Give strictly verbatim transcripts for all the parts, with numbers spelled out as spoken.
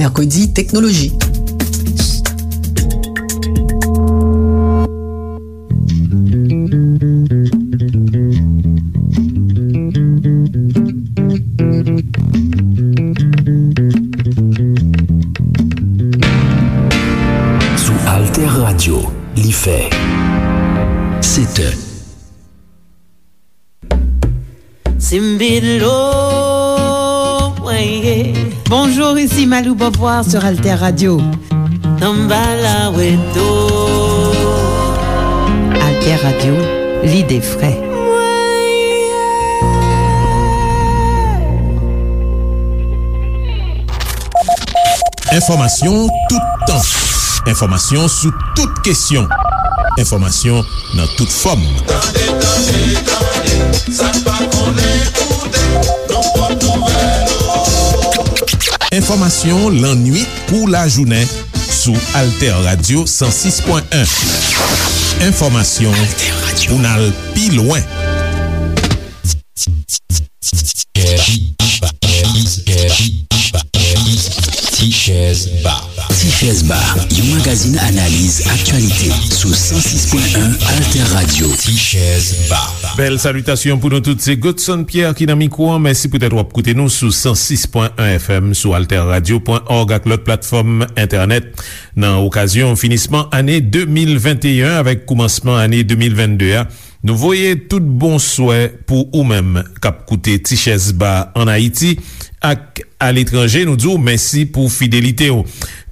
Mèkredi, teknoloji. Sou Alter Radio, li fè sèt è. Simbilo, mwen ye. Bonjour, ici Malou Beauvoir sur Alter Radio. Tanbala weto. Alter Radio, l'idée frais. Mwen ye. Enfòmasyon toutan. Enfòmasyon sou tout kesyon. Enfòmasyon nan tout fòm. Tande, tande, tande, sa n pa konnen koute, nan pòt nouvèl. Enfòmasyon lannuit kou lajounen sou Alter Radio san sis pwen en. Enfòmasyon pou n al pi lwen. Ti Chèz Ba. Ti Chèz Ba, yon magazin analiz aktyalite sou san sis pwen en Alter Radio. Ti Chèz Ba. Bèl salitasyon pou nou tout, se Godson Pierre ki nan mikwo an. Mèsi poutèt w ap koute nou sou san sis pwen en F M, sou alter radio pwen org ak lòt platfòm entènèt. Nan okazyon finisman ane de mil venteyen avèk koumansman ane de mil vennde a, nou voye tout bon swè pou ou menm k ap koute Ti Chèz Ba ann Ayiti ak aletranje. Nou di w mèsi pou fidelite w.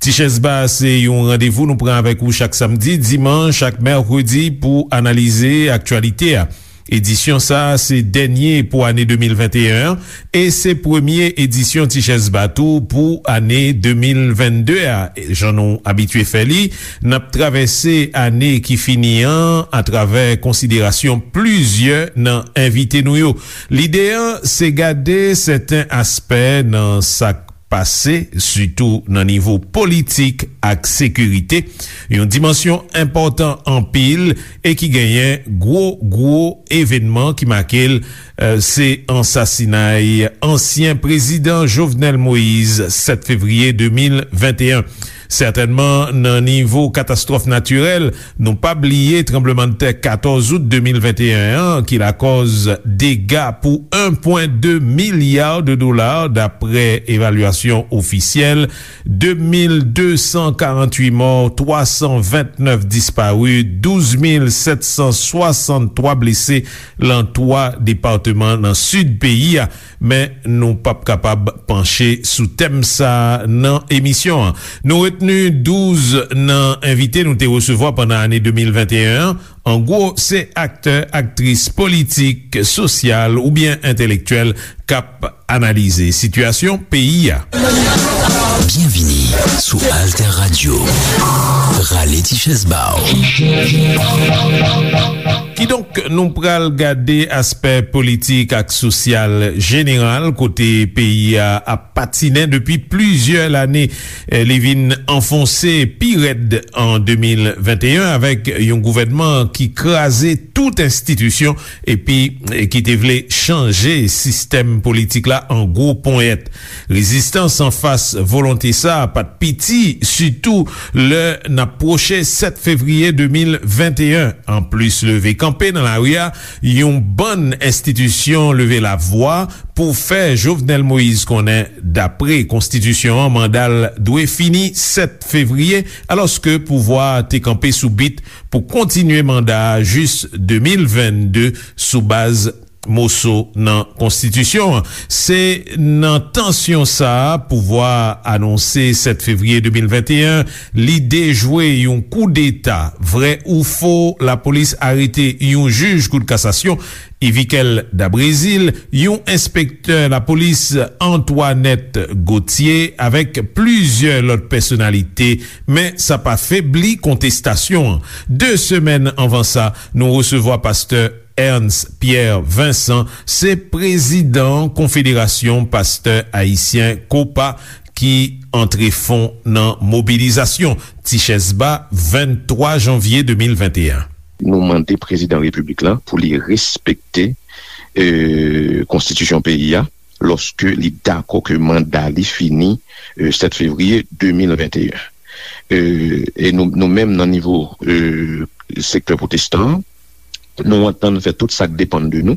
Ti Chèz Ba se yon randevou nou pran avèk ou chak samdi, dimanch ak mèkredi pou analize aktyalite a. Edisyon sa a se dènye pou ane de mil venteyen an e se premye edisyon Ti Chèz Ba tou pou ane de mil vennde a. Jan nou abitye fè li, n ap travèse ane ki fini an atravè konsiderasyon plizyè nan envite nou yo. Lide an se gade sèten aspè nan sa k pase, sitou nan nivo politik ak sekirite, yon dimansyon enpòtan anpil e ki genyen gwo, gwo evènman ki make l, eh, se ansasinay ansyen prezidan Jovenel Moïse, sèt fevriye de mil venteyen. Sètènman, nan nivo katastwòf natirèl, nou pa bliye tranblemanntè katòz out de mil venteyen an, ki lakòz dega pou en pwen de milya de dola, daprè evalyasyon ofisyèl, de mil de san karannwit mò, twa san vennèf dispari, douz mil sèt san swasanntwa blese lan twa depatman nan sid peyi a. Men nou p ap kapab panche sou tèm sa a nan emisyon an. Nou retni douz nan envite nou te resevwa pandan ane de mil venteyen an. An gwo, se aktè, aktris politik, sosyal oubyen entelektyèl k ap analize sitiyasyon peyi a. Byenvini sou Alter Radio. Rale ti chèz ba w. Kidonk, nou pral gade aspè politik ak sosyal jeneral kote peyi a ap patinen depi plizyè lane. Eh, li vin anfonse pi rèd an de mil venteyen avèk yon gouvènman ki kraze tout enstitisyon epi, eh, ki te vle chanje sistèm politik la an gwo ponyèt. Rezistans anfas volonte sa a pa t piti, sitou lè n ap pwoche sèt fevriye de mil venteyen. Anplis leve kanpe nan lari a, yon bann enstitisyon leve lavwa pou fè Jovenel Moïse konnen, dapre konstitisyon an, manda l dwe fini sèt fevriye, alòske pouvwa a te kanpe sou bit pou kontinye manda a jis de mil vennde sou baz moso nan konstitisyon an. Se nan tansyon sa a, pouvwa a anonse sèt fevriye de mil venteyen, li dejwe yon koudeta, vrè ou fo, lapolis arete yon jij kout kasasyon, Yvikel Dabrezil, yon enspektè lapolis, Antoinette Gauthier, avèk plizyè lòt pèsonalite, men sa pa febli kontestasyon an. De semèn anvan sa, nou resevwa pastè Ernst Pierre Vincent, se prezidan Konfederasyon Pastè Ayisyen, kopa, ki antre fon nan mobilizasyon. Ti chèz ba, venntwa janvye de mil venteyen. Nou mande prezidan repiblik la pou li respekte, e, konstitisyon peyi a, lòske li dakò ke manda li fini, e, sèt fevriye de mil venteyen. E, e nou, nou menm nan nivo, e, sektè pwotestan an, nou antann fè tout sa k depann de nou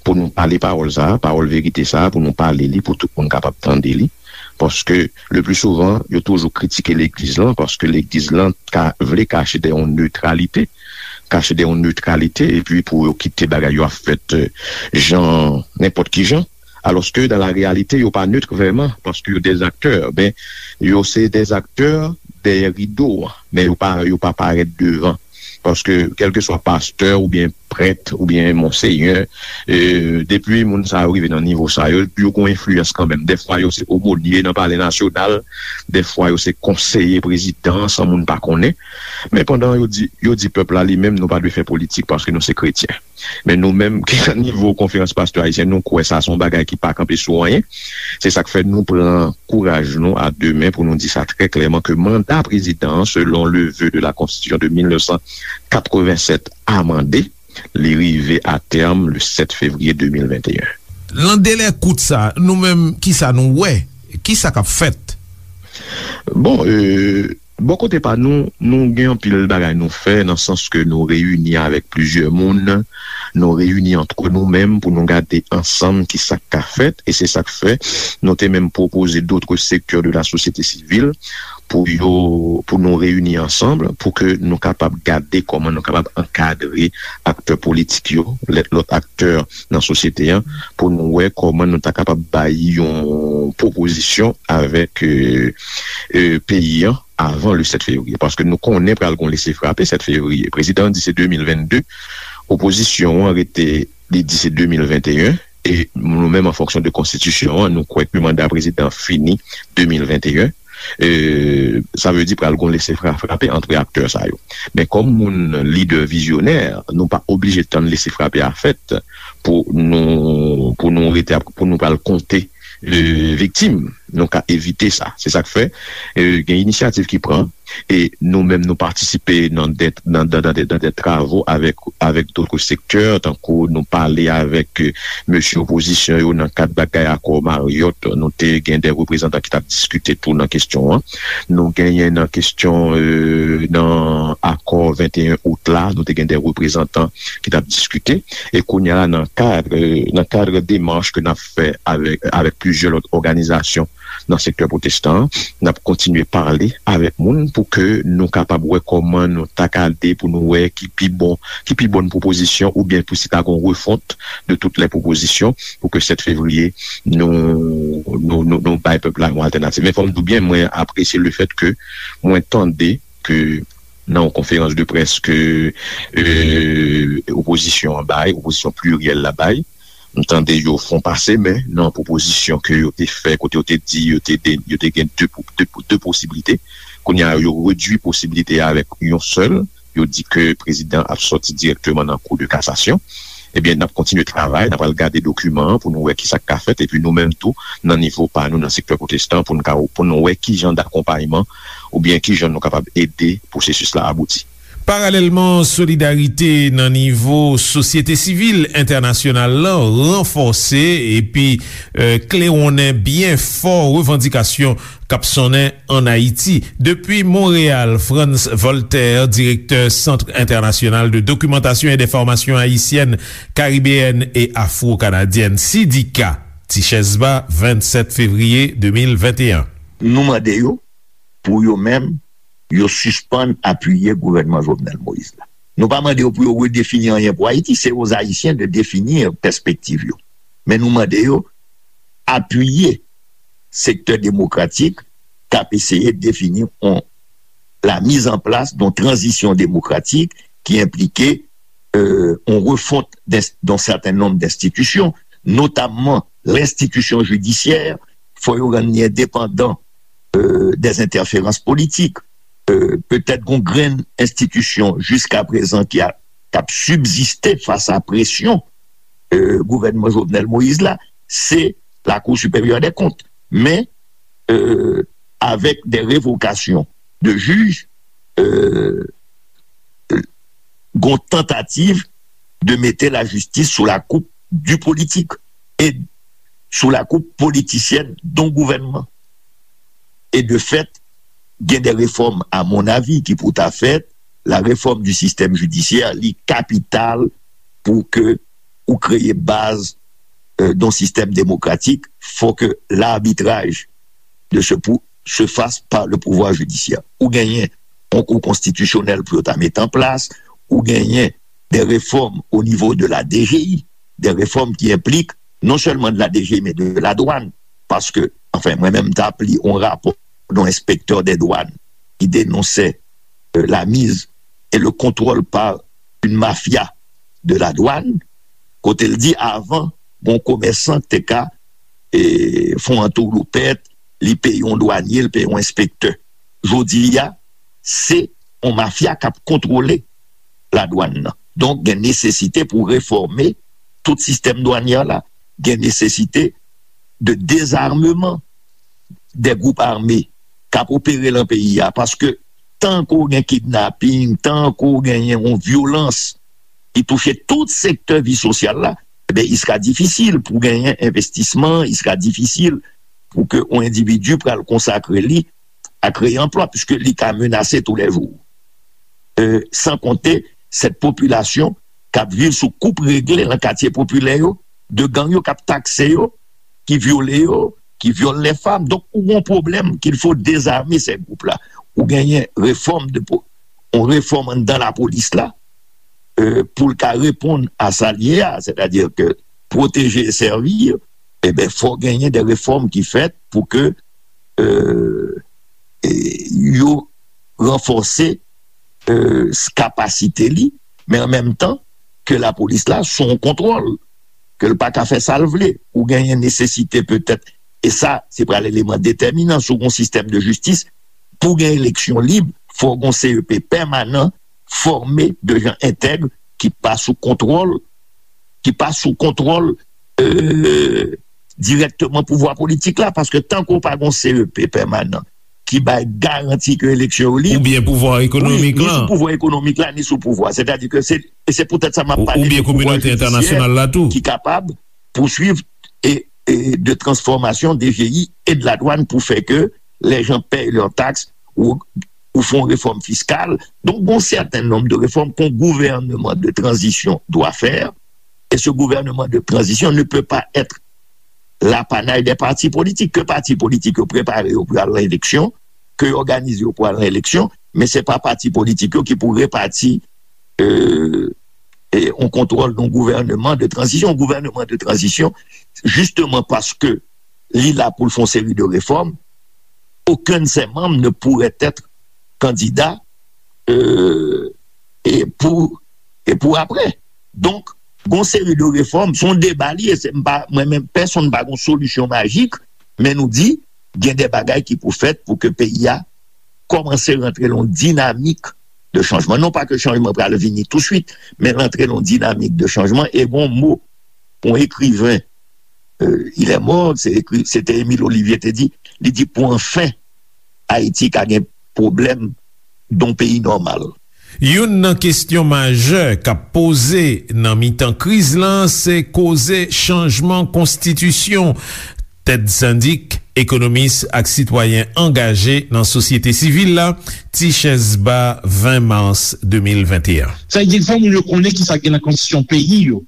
pou nou pale pawòl sa a, pawòl verite sa a, pou nou pale li, pou tout moun kapab tande li. Paske, le pli souvan, yo toujou kritike legliz lan, paske legliz lan ka vle kache dèyè yon netralite, kache dèyè yon netralite, epi pou yo kite bagay yo ap fèt, e, jan, nenpòt ki jan. Alòske, dan la reyalite, yo pa net vrèman, paske yo dèzaktè. Ben, yo se dèzaktè dèyè rido an, men yo pa, yo pa parèt devan. Paske, kèlkeswa pastè oubyen prèt oubyen monsenyè, e, depi moun sa yo rive nan nivo sa yo, yo gon enfliyans kanmenm. Dèfwa, yo se omonye nan Palè Nasyonal, dèfwa, yo se konseye prezidan, san moun pa konnen. Men pandan yo di, yo di pèp la li menm, nou pa dwe fè politik paske nou se kretyen. Men nou menm ki nan nivo Konferans Pastè Ayisyen, nou kwè sa se yon bagay ki pa kanpe sou anyen. Se sa k fè nou pran kouraj nou a de men pou nou di sa trè klèman ke manda prezidan an, selon le vœu de la Constitution de mil nèf san katrevennsèt amande, li rive a tèm le sèt fevriye de mil venteyen. Nan delè kout sa, nou menm, kisa nou wè? Kisa k ap fèt? Bon, e, bò kote pa nou, nou gen anpil bagay nou fè, nan sans ke nou reyini avèk plizyè moun, nou reyini antre nou menm pou nou gade ansanm kisa k ka fèt, e se sa k fè nou te menm pwopoze d'autres secteurs de la société civile pou yo, pou nou reyini ansanm, pou ke nou kapab gade kòman nou kapab ankadre aktè politik yo, lè, lòt aktè nan sosyete an, pou nou wè kòman nou ta kapab bay yon pwopozisyon avèk, e, e, peyi an avan le sèt fevriye. Paske nou konnen pral gon lese frape sèt fevriye. Prezidan an di se de mil vennde, opozisyon an rete, li di se de mil venteyen, e nou menm, an fonksyon de konstitisyon an, nou kwè ke manda prezidan an fini de mil venteyen. E, sa vle di pral gon lese fra-, frape antre aktè sa yo. Men kòm moun lidè vizyonè, nou pa oblije tann lese frape a fèt pou nou, pou nou rete ap, pou nou pral konte, e, viktim. Nou ka evite sa. Se sa k fè, e, gen inisyativ ki pran, e nou menm nou patisipe nan de, nan, nan, nan de, nan de travo avèk, avèk d'autres secteurs, tankou nou pale avèk, e, mesye opozisyon yo nan kad bagay akò Marriott, nou te gen de reprezantan ki t ap diskite tou nan kesyon an. Nou genyen nan kesyon, e, nan akò venteyen out la, nou te gen de reprezantan ki t ap diskite. E kounye a la, nan kad, nan kad demach ke n ap fè avèk, avèk plizyè lòt òganizasyon nan sektè pwotestan an, n ap kontinye pale avèk moun pou ke nou kapab wè kòman nou ta ka de pou nou wè ki pi bon, ki pi bòn pwopozisyon oubyen pou si ta gon refont de toutes les propositions pou ke sèt fevriye nou, nou, nou, nou bay pèp la yon altènativ. Men fò m di w byen, mwen apresye le fèt ke mwen tande ke nan yon konferans de près ke, e, opozisyon an bay, opozisyon pliryèl la bay, m tande yo fon pase men nan pwopozisyon ke yo te fè, kote yo te di yo te, de, yo te gen de, de, de posiblite. Kounye a, yo redui posiblite a avèk yon sèl. Yo di ke prezidan ap sòti dirèkteman nan Cour de cassation. Ebyen, n ap kontinye travay, n ap al gade dokiman an pou nou wè kisa k ka fèt, epi nou menm tou, nan nivo pa nou, nan sektè pwotestan, pou nou ka, pou nou wè ki jan dakonpayman oubyen ki jan nou kapab ede pwosesis la abouti. Paralèlman, solidarite nan nivo sosyete sivil entènasyonal la ranfòse epi, e, klewonnen byen fò revandikasyon k ap sonnen ann Ayiti. Depi Monreyal, Frantz Voltaire, direktè Centre International de Documentation et d'Information Haïtienne, Caribéenne et Afro-Canadienne, sidika, Tichèz Ba, vennsèt fevriye de mil venteyen. Nou mande yo pou yo menm, yo sispann apiye gouvènman Jovenel Moïse la. Nou pa mande yo pou yo redefini anyen pou Ayiti, se aux Ayisyen de définir pèspektiv yo. Men nou mande yo apiye sektè demokratik k ap eseye defini yon, la mise en place d'une transition démocratique ki enplike, euh, yon refont d'un certain nombre d'institutions, notamman lenstitisyon jidisyè, fò yo rann li endepandan, euh, des interférences politiques. Euh, petèt gon grenn enstitisyon jiskaprezan ki a, k ap sibziste fas a presyon, euh, gouvènman Jovenel Moïse la, se la Cour supérieure des comptes. Men, euh, avèk de revokasyon de jij, euh, gon tantativ de mete lajistis sou la koup di politik. E sou la koup politisyèn don gouvènman. E de fèt, gen de refòm, a mon avi, ki pou ta fèt. La réforme du système judiciaire, li kapital pou ke ou kreye baz euh, d'un système démocratique, faut que l'arbitrage de ce pou se fasse par le pouvoir judiciaire. Ou genyen yon kou konstitisyonèl pou yo ta met an plas, ou genyen de refòm o nivo de la D G I, de refòm ki enplik non sèlman de la D G I, men de la dwàn. Paske, anfen, mwen menm, m t ap li yon rapò d'un inspecteur des douanes ki denonse euh, la mise et le contrôle par une mafia de la douane, kote l di avan, bon, komèsan te ka e, fè yon antoulopèt, li peye yon dwanye, li peye yon enspektè. Jodi a, se yon mafya k ap kontwole ladwàn nan. Donk, gen nesesite pou refòme tout sistèm dwanyè la. Gen nesesite de dezarmeman de gwoup ame k ap opere lan peyi a. Paske tan ke w gen kidnaping, tan ke w genyen yon vyolans ki touche tout sektè vi sosyal la, ebyen, il sera difficile pou genyen envestisman, il sera difficile pou ke yon endividi pral konsakre li a kreye anplwa, piske li ka menase toulèjou. Euh, san konte sèt popilasyon k ap viv sou koup regle lan katye popilè yo, de gang yo k ap takse yo, ki vyole yo, ki vyole lè fanm. Donk, ou gen yon pwoblèm qu'il faut désarmer ces groupes-là. Ou genyen refòm de po- yon refòm anndan lapolis la, euh, pou l ka reponn a sa l ye a, sètadi ke pwoteje e sèvi, ebyen, fò genyen de refòm ki fèt pou ke euh, e yo ranfòse euh, kapasite li, men an menm tan ke lapolis la sou yon kontwòl, ke l pa ka fè sa l vle. Ou genyen nesesite petèt, e sa se pral eleman detèminan sou yon sistèm de jistis, pou gen eleksyon lib, fò gen C E P pèmanan, fòme de jan entèg, ki pa sou kontwòl, ki pa sou kontwòl euh, dirèkteman pouvwa politik la, paske tankou w pa gen C E P pèmanan ki bay garanti ke eleksyon yo lib, oubyen pouvwa ekonomik la, ni sou pouvwa ekonomik la, ni sou pouvwa. Sètadi ke se, e se poutèt sa m ap pale de pouvwa jidisyè ki kapab pouswiv e, e de transformasyon D G I e de la douane pou fè ke les gens payent leurs taxes ou, ou font réforme fiscale. Donc, bon, certain nombre de réformes qu'un gouvernement de transition doit faire, et ce gouvernement de transition ne peut pas être l'apanage des partis politiques. Ke pati politik yo prepare yo pou al nan eleksyon, ke yo òganize yo pou al nan eleksyon, men se pa pati politik yo ki pou repati euh, e yon kontwòl d'un gouvernement de transition. Yon gouvènman de tranzisyon, jisteman paske li la pou l fè yon seri de refòm, aucun de ses membres ne pourrait être candidat euh, e pou e pou apre. Donk, gon seri de refòm, se yon deba li ye, se m pa, mwen menm, pèsonn pa gon solisyon majik, men nou di, gen de bagay ki pou fèt pou ke peyi a kòmanse rantre lan yon dinamik de chanjman. Non pa ke chanjman pral vini touswit, men rantre lan yon dinamik de chanjman. E gon mo, yon ekriven, euh, il est mort, se ekri, se te Émile Olivier te di, li di, pou anfen, Ayiti ka gen pwoblèm d'un peyi nòmal. Youn nan kesyon majè k ap poze nan mitan kriz lan, se koze chanjman konstitisyon. Ted Syndic, ekonomis ak sitwayen angaje nan sosyete sivil la, Tichèz Ba, ven mas de mil venteyen. Sa vle di, fò moun yo konnen kisa ki gen nan konstitisyon peyi yo.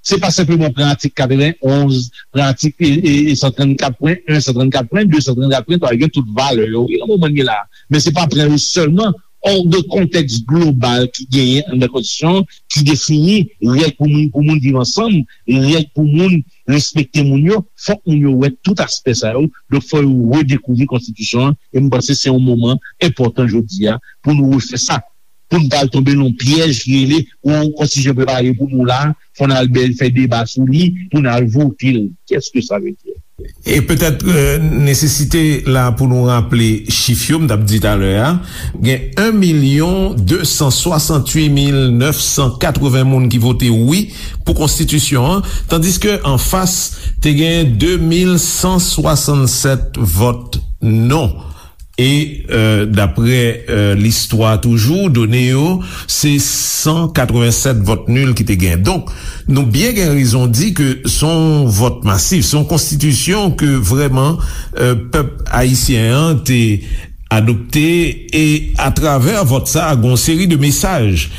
Se pa senpleman pran atik katrevenn onz, pran atik e, e, e san trannkat pwen en, san trannkat pwen de, san trannkat pwen twa, yo gen tout valè yo. Wi, nan moman n ye la. Men se pa pran yo sèlman, hors de kontèks global ki genyen anndan konstitisyon an, ki defini règ pou moun, pou moun viv ansanm, règ pou moun respekte moun yo, fòk moun yo wè tout aspè sa yo. Donk, fò yo redekouvri konstitisyon an. E m panse se yon moman enpòtan jodi a pou nou refè sa. Pou n pa al tonbe nan yon pyèj ki rele, yon konstitisyon prepare pou nou la, fò n al bèl fè deba sou li, pou n al vote l. Qu'est-ce que ça veut dire? E petèt euh, nesesite la pou nou raple chif yo m t ap di talè a, gen en milyon de san swasanntuit mil nèf san katreven moun ki vote wi pou konstitisyon an, tandiske anfas te gen de mil san swasannsèt vòt non. E, euh, daprè, euh, listwa toujou, done yo, se san katrevennsèt vòt nil ki te gen. Donk, nou byen gen rezon di ke se yon vòt masif, se yon konstitisyon ke vrèman, euh, pèp ayisyen an te adopte, e atravè vòt sa a, gen yon seri de mesaj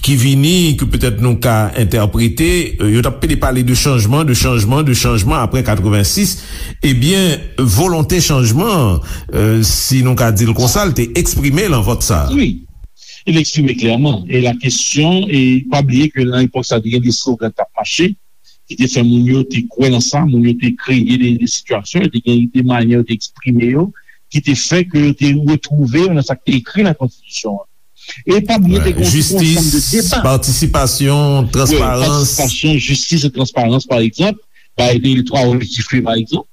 ki vini, ke petèt nou ka entèprete, euh, yo t ap pede pale de chanjman, de chanjman, de chanjman apre katrevensis, ebyen, volonte chanjman an, euh, si nou ka di l konsa, l te eksprime nan vòt sa a. Wi, li eksprime klèman. E la kesyon, e pa bliye ke nan epòk sa, te gen de slogan k t ap mache, ki te fè moun yo te kwè nan sa, moun yo te kreye de, de sitiyasyon, te gen de manyè yo te eksprime yo, ki te fè ke yo te retwouve yo nan sa k te ekri nan konstitisyon an. E pa bliye, te gen yon ansanm de deba. Patisipasyon, transparans. Wi, patisipasyon, jistis e transparans, pa egzanp, bay de twa objektif yo, pa egzanp.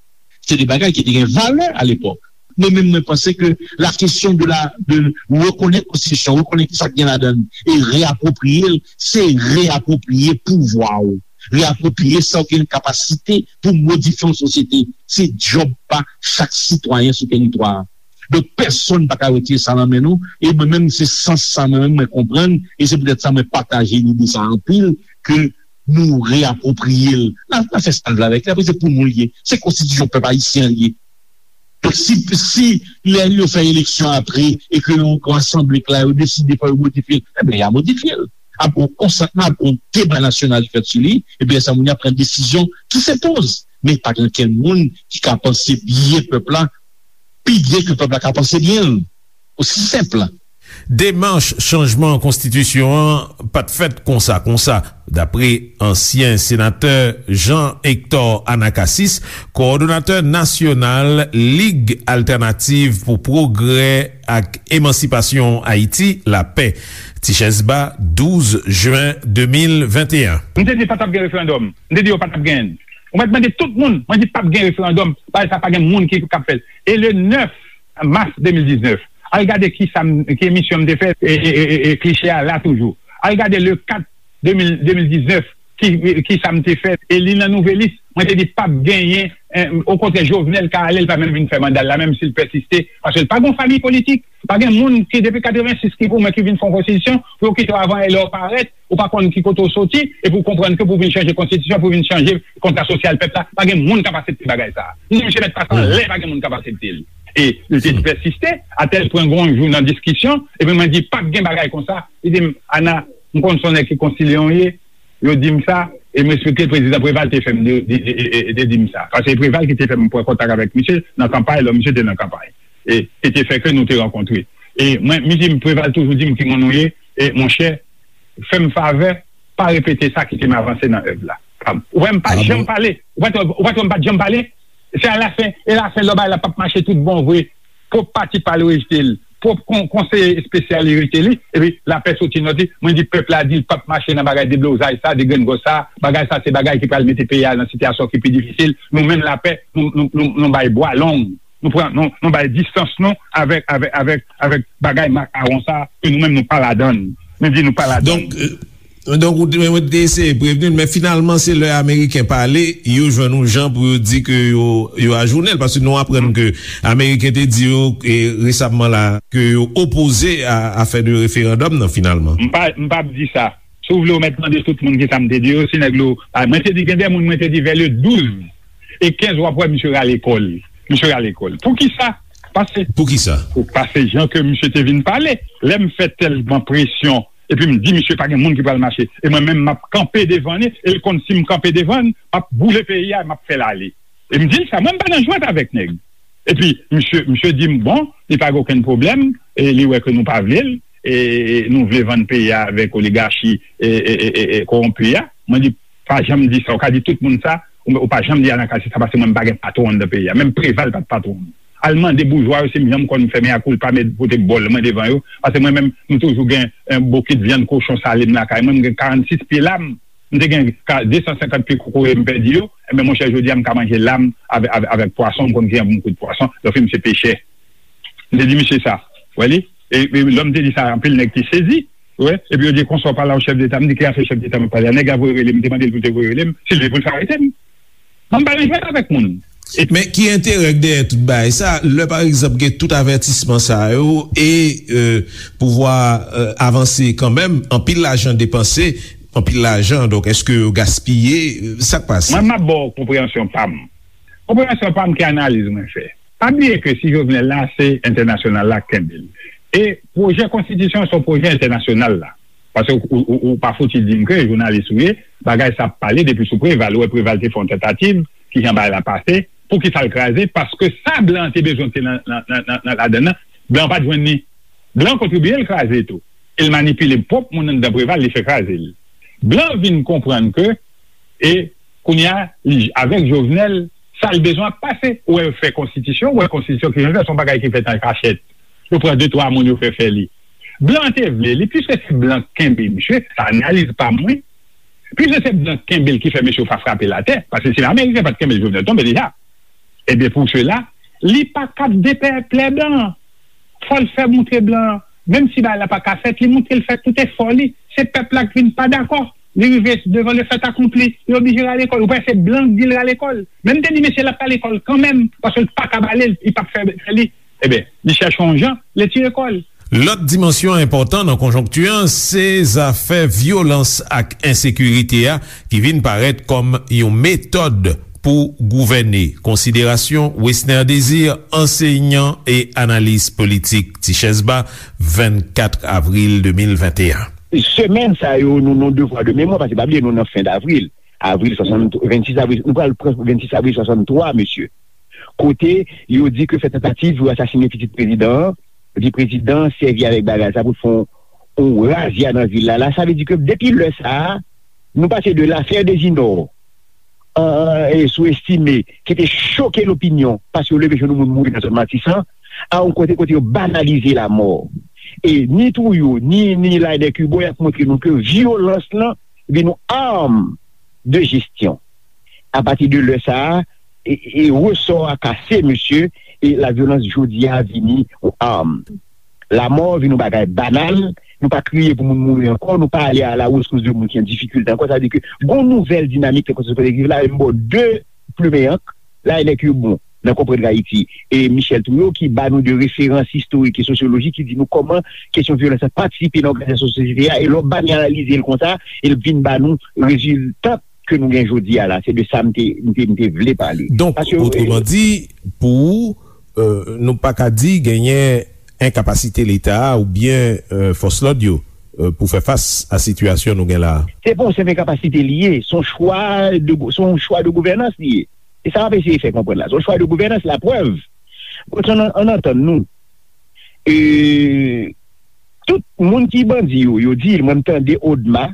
Se de bagay ki te gen valè alepòk. Mwen menm, mwen panse ke la kesyon de la, de rekonèt konstitisyon, rekonèt ki sa k gen ladan l, e reapwopriye l, se reapwopriye pouvwa w, reapwopriye sa w gen kapasite pou modifye yon sosyete. Se djòb pa chak sitwayen sou teritwa a. Donk, pèsonn pa ka retire sa nan men nou. E mwen menm, se sans sa mwen menm mwen konprann. E se poutèt sa mwen pataje lide sa anpil, ke nou reapwopriye l. N a, n a fè sa n vle avèk li. Apre, se pou nou l ye. Se konstitisyon pèp ayisyen an l ye. Donk, si, si lè yo fè eleksyon apre e ke yon, yon asanble k la, yo deside fò yo modifye l, ebyen, y a modifye l. Ap gen yon konsantman, ap gen yon deba nasyonal ki fèt sou li, epi lè sa moun yo ap pran desizyon ki se poz. Men pa gen okenn moun ki ka panse byen pèp la, pi byen ke pèp la ka panse byen l. Osi senp. Demach chanjman konstitisyon an pa t fèt konsa konsa, dapre ansyen senatè Jean Hector Anacasis, kowòdonatè nasyonal Lig Altènativ pou Pwogrè ak Emansipasyon Ayiti, Lapè. Tichèz Ba, douz jen de mil venteyen. M te di pa t ap gen referandòm. M te di yo pa t ap genyen l. Ou mèt mande tout moun, mwen di p ap gen referandòm, bagay sa pa gen moun ki k ap fè l. E le nèf mas de mil diznèf, al gade ki sa m, ki emisyon m te fè, e, e, e, e, e kliche a la toujou. Al gade le kat de mil, de mil diznèf, ki, ki sa m te fè, e li nan Nouvelis, mwen te di p ap genyen, eh, okontrè, Jovenel ka ale, l pa menm vin fè manda l la, menm si l pèsiste, paske l pa gen yon fanmi politik. Pa gen moun ki, depi katrevensis, ki pou mwen ki vin fè yon konstitisyon, pou yo kite w avan e lè w parèt, ou pa konn ki kote w soti, epi w konprann ke pou w vin chanje konstitisyon, pou w vin chanje kontra sosyal pèp la, pa gen moun k ap aksepte bagay sa a. Ni misye mèt pase anlè, pa gen moun k ap aksepte l. E li te pèsiste, atèl pwen gon jou nan diskisyon, epi mwen di, p ap gen bagay konsa. Li di m, Ana, m konn se yon nèg ki konsilye w ye, yo di m sa, e m respekte prezidan Preval te fè m de, de, de, de, de di m sa. Paske Preval ki te fè m pran kontak avèk misye nan kanpay, lò misye te nan kanpay. E, e te fè ke nou te rankontre. E mwen, misye Preval toujou di m ki moun ou ye, e monchè, fè m favè, pa repete sa, kite m avanse nan èv la. Ou wè m pa janm pale, ou pa t wè, ou pa t wè m pa t janm pale, se alafen, e lafen lò bagay la p ap mache tout bon vre. Pwòp pati pa l rejte l. Pwòp kon-, konseye espesyal li rejte li. Epi Lapè soti nòt li. Mwen di pèp la di l p ap mache nan bagay deblozay sa, degrengòs sa. Bagay sa se bagay ki pral mete peyi a nan sitiyasyon ki pi difisil. Nou menm Lapè, nou, nou, nou, nou bay bwa long. Nou pran, nou, nou bay distans nou avèk, avèk, avèk, avèk bagay makawon sa, ke nou menm nou pa ladan l. Nou di nou pa ladan l. Donk, euh, Donk, ou te, ou te eseye prevni l, men finalman, se lè Ameriken pale, yo jwenn yon jan pou yo di ke yo, yo ajounen l, paske nou aprann ke Ameriken te di yo, e, resamman la, ke yo opoze a, a fè de referandòm nan, finalman. M pa, m p ap di sa. Si w vle, w mèt mande tout moun ki sa m te di yo, si nèg yo, a, mwen te di, gen de moun, mwen te di, vè le douz e kenz, w ap wè misye rale kò l. Misye rale kò l. Poukisa? Paske Poukisa? Paske jan ke misye te vin pale, lè m fè tèlman presyon, epi m di misye pa gen moun ki pral mache. E mwen menm, m ap kanpe devan li, e l konn si m kanpe devan l, m ap boule peyi a, m ap fè l ale. E m di l sa, mwen m pa nan jwèt avèk nèg. Epi, misye, misye di m, bon, li pa gen okenn pwoblèm, e li wè ke nou pa vle l, e nou vle vann peyi a avèk oligachi, e, e, e, e, e kowonpi a. Mwen di, pa janm di sa, ou ka di tout moun sa, ou, ou pa janm di Anacasis sa, paske mwen m pa gen patwon anndan peyi a. Menm Preval pa t patwon m. Al mande boujwa yo si m janm konn fè mea culpa, met pote bòl mwen devan yo. Paske mwen menm, m toujou gen, eh, bokit vyann kochon sale m lakay mwen. M gen karannsis pye lam. M te gen ka, de san senkant pye kokoye m pèdi yo. Enben, monchè, jodi a, m ka manje lam avè-, avè-, avèk pwason. M konn ki jan pou m koud pwason. Donk, m se pechè. M te di misye sa. Ou wè li? E, e lè m te di sa, anpil nèg te sezi. Ou wè? Epi yo di, konsa w pale a yon chèf deta. M di, ki afè chèf deta m ap pale a? Nèg la voye rele m. M te mande l pou l te voye rele m. Si l vle pou l fè arete m. Mwen m pa nan jwèt avèk moun. Men ki enterè k dèyè tout bagay sa, lè pa egzanp gen tout avètisman sa yo e pouvwa avanse kanmenm, anpil lajan depanse, anpil lajan, donk èske yo gaspiye? Sa k pase? Mwen m ap ba w konpreyansyon pa m. Konpreyansyon pa m ki analiz mwen fè. Pa bliye ke si Jovenel la se entènasyonal la k kenbe l. E pwojè konstitisyon se yon pwojè entènasyonal la. Paske ou, ou, ou pa fouti di m ke jounalis ou ye, bagay sa ap pale depi sou Preval. Ou wè Preval te fè yon tantativ, kijan bagay la pase, poukisa l kraze, paske sa blan an te bezwen te nan, nan, nan, nan, nan ladann nan, blan an pa t jwenn li. Blan an kontribiye l kraze tou. E l manipile pwòp moun anndan Preval, li fè kraze l. Blan vin konprann ke, e kounye a, li, avèk Jovenel, sa l bezwen ap pase. Ou wè yo fè konstitisyon, ou wè konstitisyon ki jan l fè, se yon bagay ki fèt an kachèt. Yo pran de twa moun, yo fè fè li. Blan te vle li, piske se blan k kenbe misye, sa analiz pa m wi. Piske se blan k kenbe l ki fè mesye yo pa frape l atè, paske si Ameriken pa t kenbe l, Jovenel tonbe deja. Ebyen, pou sela, li pa kab depèplè blan an. Fò l fè moutre blan an, menm si bagay la pa ka fèt, li moutre l fè tout efò li. Se pèp la k vin pa dakò. Li rive devan le fait accompli, li oblije rale kò l. Ou panse se blan k di l rale kò l? Men m te di mesye l ap rale kò l kanmenm, paske l pa kab ale, li p ap fè, fè li. Ebyen, li chèche yon jan, li tire kò l. Lòt dimansyon enpòtan nan konjonkti an se zafè vyolans ak ensekirite a ki vin parèt kòm yon metòd pou gouvène. Konsiderasyon Wesner Désir, ansenyan e analis politik, Tichèz Ba, vennkat avril de mil venteyen. Semèn sa yo, nou nan devwa de memwa, paske pa bliye nou nan fen davril. Avril swasanntrwa, vennsis avril, nou pral pran vennsis avril swasanntwa, mesye. Kote yo di ke fè tantativ pou asasinen pitit prezidan an, di prezidan an sèvi avèk bagay sa pou l fè yon, yon razya nan vil la. La, sa vle di ke depi lè sa a, nou pase de l'affaire des Inor, an, e sou estime, ki te choke lopinyon, paske yo leve jwenn yon moun mouri nan zòn Matisan, a yon kote, kote yo banalize lamò. E ni Trouillot, ni, ni Laënec Hubaut, y ap montre nou ke vyolans lan vin yon arm de jesyon. Apati de lè sa a, e, e resò a kase, mesye, e lavyolans jodi a vini yon arm. Lamò vin yon bagay banal, nou pa kriye pou moun mouri ankò, nou pa ale a la rescousse de moun ki an difikilte ankò, sa vle di ke gon nouvèl dinamik nan konsosyete ki viv la, e m ba w de plimen ank, Laënec Hubaut, nan Konprann Ayiti, e Michel Trouillot ki ba nou de referans istorik e sosyolojik ki di nou kòman kesyon vyolans lan patisipe nan òganizasyon sosyete a, e lè w banalize l konsa, e l vin ba nou rezilta ke nou gen jodi a la, se de sa m te, m te, m te vle pale. Donk, otreman di, pou ou, euh, nou pa ka di genyen enkapasite Leta a oubyen, euh, fòs lòd yo, euh, pou fè fas a sitiyasyon nou gen la a? Se pa yon senp enkapasite li ye, se yon chwa de gou-, se yon chwa de gouvènans li ye. E sa m ap eseye fè konprann la. Se yon chwa de gouvènans, laprèv. Bon, ann, ann antann nou. E, tout moun ki bandi yo, yo di, mwen m tande Odma,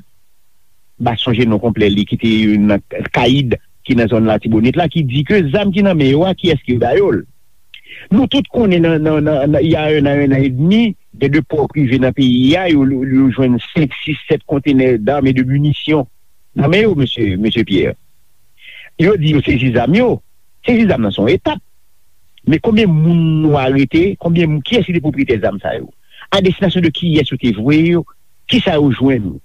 m pa sonje non konplè li, ki te nan Kayid, ki nan zòn Latibonit la, ki di ke zam ki nan men yo a, kiyès ki ba yo l? Nou tout konnen nan, nan, nan, nan, il y a un an, un an et demi, gen de pò prive nan peyi a, yo, yo, yo jwenn senk, sis, sèt kontenè d'armes et de munitions nan men yo, mesye, mesye Pierre. Yo di yo sezi zam yo. Sezi zam nan se yon etap. Men konbyen moun nou arete? Konbyen moun, kiyès ki te pwopriyetè zam sa yo? A destinasyon de kiyès yo te voye yo? Kisa yo jwenn?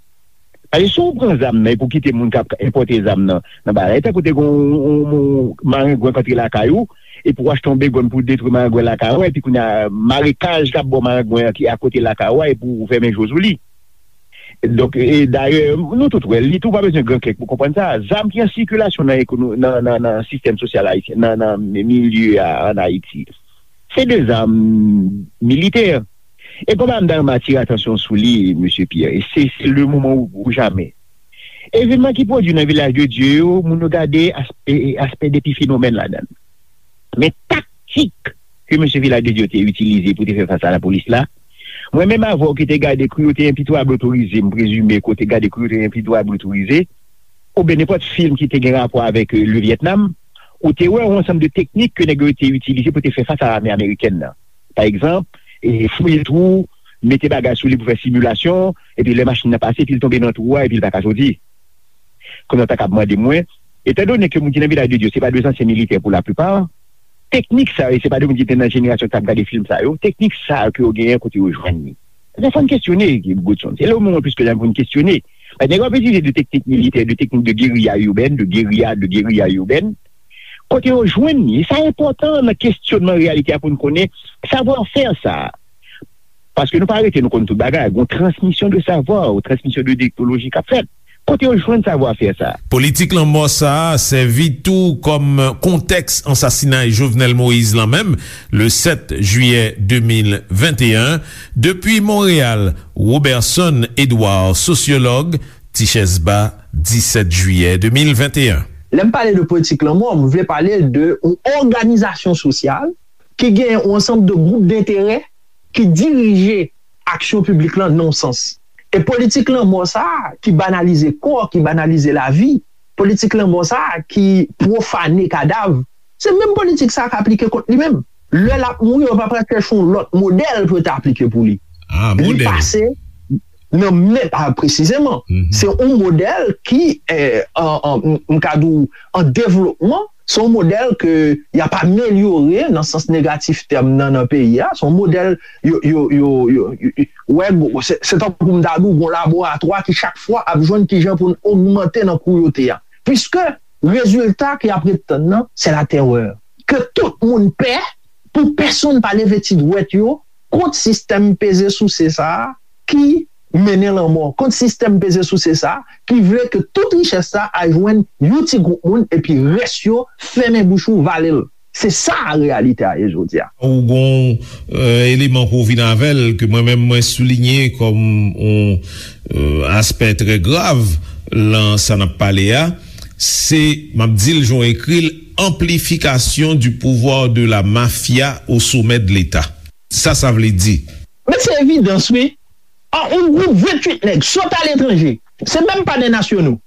Paske si w pran zam nan epi w kite moun k ap enpòte zam nan, nan bagay, tankou te gen yon, yon, yon marengwen k antre lakay ou, epi w achte yon begòn pou detwi marengwen lakay ou, epi kounye a, marekaj k ap ba w marengwen an ki akote lakay ou a, epi w fèmen je w sou li. Donk, e dayè, nou tout wè, li tou pa bezwen gran kèk pou konprann sa. Zam ki an sikilasyon nan ekono-, nan, nan, nan sistèm sosyal ayisyen, nan, nan milye a ann Ayiti, se de zam militè. E konba m ta renmen atire atansyon sou li, mesye Pierre, e se, se le moman ou, ou jamè. Evènman ki pwodui nan Vilaj de Dye yo, moun yo gade aspè, aspè depi fenomèn ladan l. Men taktik ke mesye Vilaj de Dye te itilize pou te fè fas a lapolis la, mwen menm avè w ki te gade Cruauté impitoyable autorisée, m prezime ke w te gade Cruauté impitoyable autorisée, oubyen nenpòt fim ki te gen rapò avèk, euh, le Vietnam, ou te wè yon ansanm de teknik ke nèg yo te itilize pou te fè fas a lame amerikèn nan. Pa egzanp, e fouye twou, mete bagay sou li pou fè similasyon, epi lè machin nan pase, epi l tonbe nan twou a, epi l pa ka soti. Kounye a w ta kab mande mwen, etandone ke moun ki nan Vilaj de Dye se pa de zansyen militè pou laplipa, teknik sa yo, se pa de moun ki te nan jenerasyon k t ap gade fim sa yo, teknik sa yo ke yo genyen, kote yo jwenn li? Sa fò n kesyone, Godson. Se le moman plis ke jamè pou n kesyone. Paske nèg yo ap itilize de teknik militè, de teknik de guérilla urbaine, de guérilla, de guérilla urbaine, Kote yo jwenn li? E sa enpòtan nan kesyonman reyalite a pou n konnen savwa fè sa a. Paske nou pa rete, nou konn tout bagay. Gon transmisyon de savwa, yon transmisyon de teknoloji k ap fèt. Kote yo jwenn savwa fè sa a? Politik lanmò sa a sèvi tou kòm kontèks ansasinay Jovenel Moïse lan menm, le sèt jiyè de mil venteyen. Depi Monreyal, Roberson Edouard, sosyològ, Tichèz Ba, disèt jiyè de mil venteyen. Lè m pale de politik lanmò, m vle pale de yon òganizasyon sosyal ki gen yon ansanm de gwoup denterè ki dirije aksyon piblik lan nan yon sans. E politik lanmò sa a ki banalize kò, ki banalize lavi, politik lanmò sa a ki pwofane kadav, se menm politik sa a k aplike kont li menm. Lè l ap mouri, yo pa pral chèche yon lòt modèl pou yo ta aplike pou li. Ah, li modèl. Pase nan men, ah, presizeman. Mhm. Se yon modèl ki, eh, an, an, m ka di w, an devlopman, se yon modèl ke y ap amelyore nan sans negatif tèm nan, nan peyi a. Se yon modèl, yo, yo, yo, yo, yo, yo, wè, se, se tankou m ta di w, yon laboratwa ki chak fwa ap jwenn kijan pou n ogmante nan krouyote a. Piske rezilta ke y ap ret tann nan, se latèrè. Ke tout moun pè, pou pèsonn pa leve ti dwèt yo kont sistèm peze souse sa a ki mennen lanmò, kont sistèm peze souse sa a ki vle ke tout richès sa a al jwenn yon ti gwoup moun epi rès yo fèmen bouch ou, vale l. Se sa reyalite a ye jodi a. Ou gon, euh, eleman ke w vin avè l, ke mwen menm mwen soulinye kòm yon, euh, aspè trè grav lan sa n ap pale a, se, m ap di l jan w ekri l, amplifikasyon du pouvoir de la mafia au sommet de l'État. Sa sa vle di? Men se evidans, wi. An, yon gwoup venntuit nèg sot aletranje, se menm pa de nasyonal,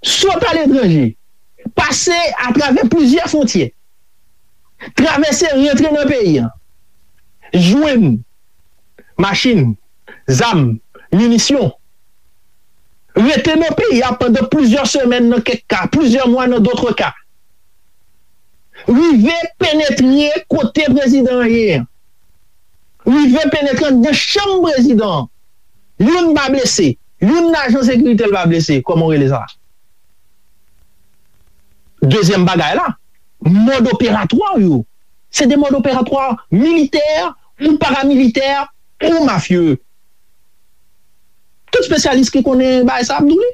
sot aletranje, pase atravè plizyè fwontyè, travèse, rantre nan peyi a, jwenn machin, zam, minisyon, rete nan peyi a pandan plizyè semèn nan kèk ka, plizyè mwa nan dòt ka, rive penetre kote prezidan an ye a, rive penetre anndan chanm prezidan an. Youn pa blese, youn nan ajan sekirite l pa blese, kòman w rele sa? Dezyèm bagay la, mòd operatwa yo, se de mòd operatwa militè ou paramilitè ou mafye. Tout espesyalis ki konnen bagay sa ap di w li.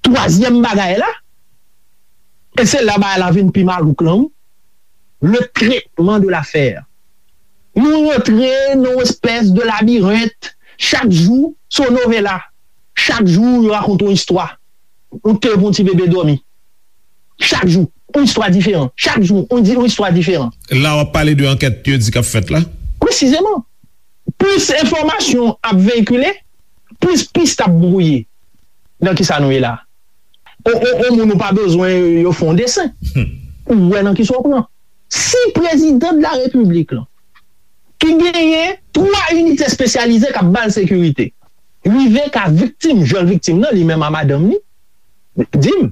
Twazyèm bagay la, e se la bagay la vin pi malouk lan, wi, le traitement de l'affaire. Nou rantre nan yon espès de labirent. Chak jou, se yon novela. Chak jou, yo rakonte yon istwa. Ou te pou yon ti bebe dòmi. Chak jou, yon istwa diferan. Chak jou, yon di, yon istwa diferan. La, w ap pale de ankèt yo di k ap fèt la? Presizeman. Plis enfòmasyon ap veyikile, plis pis ap bwouye. Nan ki sa nou ye la? On, on, on moun ou pa bezwen yo fè yon desen. Ou wè nan ki sa w pran. Si prezidan de la repiblik lan, ki genyen twa inite espesyalize k ap ba l sekirite, rive ka viktim, jan l viktim nan, li menm a madanm li, di m,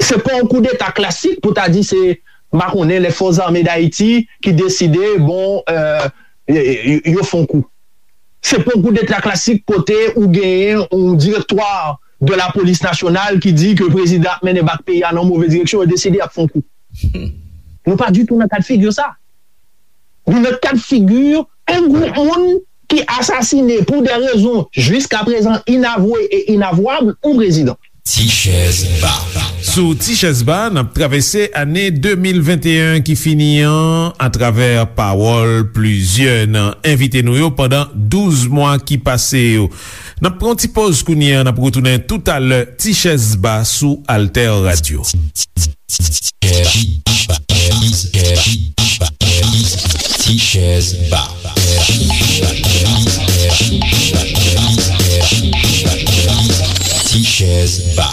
se pa yon koudeta klasik pou ta di se, m pa konnen, lè Fòs Zame Dayiti ki deside, bon, euh, yo, yo, yo fè yon kou. Se pa yon koudeta klasik kote ou genyen yon direktwa de la polis nasyonal ki di ke prezidan ap mennen bak peyi a nan move direksyon, yo deside y ap fè yon kou. Nou pa ditou nan kad figi sa. Nou nan kad figi yon gwoup moun ki asasine pou de rezon jiskaprezan inavwe e inavwab yon prezidan. Tichèz Ba. Sou Tichèz Ba, n ap travèse ane de mil venteyen ki fini an atravè pawòl plizyè nan envite nou yo pandan douz mwa ki pase yo. N ap pran yon ti pòz kounye a, n ap retounen toutalè. Tichèz Ba sou Alter Radio. Tichèz Ba. Tichèz Ba.